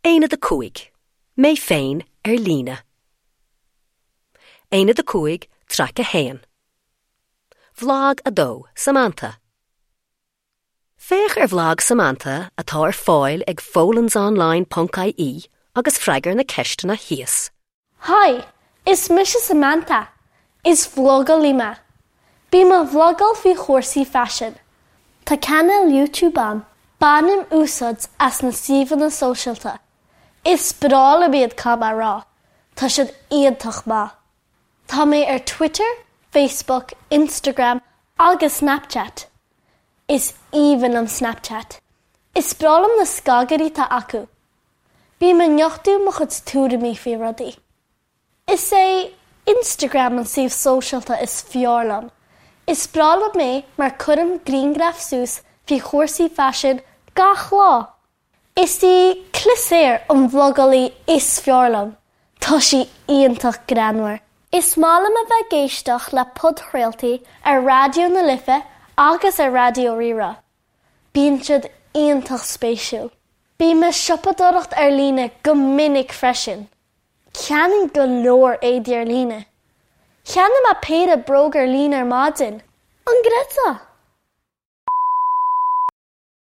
Aonad 5, Mé féin ar líne. Aonad 5, Traic 1. Bhlag 2, Samantha. Féach ar bhlag Samantha atá ar fáil ag folansonline ponc ie agus freagair na ceisteanna thíos. Haigh, is mise Samantha. Is vlogálaí mé. Bím ag vlogáil faoi chúrsaí faisin. Tá cainéal YouTube a'm. Bainim úsáid as na suíomhanna sóisialta. Is breá liom iad caithfidh mé a rá. Tá siad iontach maith. Tá mé ar Twitter, Facebook, Instagram agus Snapchat. Is aoibhinn liom Snapchat. Is breá liom na scagairí atá acu. Bím ag nochtadh mo chuid tuairimí faoi rudaí. Is é Instagram an suíomh sóisialta is fearr liom. Is breá liom é mar cuirim grianghraif suas faoi chúrsaí faisin gach lá. Is í Clisaor an vlogálaí is fearr liom. Tá sí iontach greannmhar. Is maith liom a bheith ag éisteacht le podchraoltaí ar Raidió na Life agus ar Raidió Rí-Rá. Bíonn siad iontach spéisiúil. Bím ag siopadóireacht ar líne go minic freisin. Ceannaím go leor éadaí ar líne. Cheannaigh mé péire bróg ar líne ar maidin. An gcreidfeá?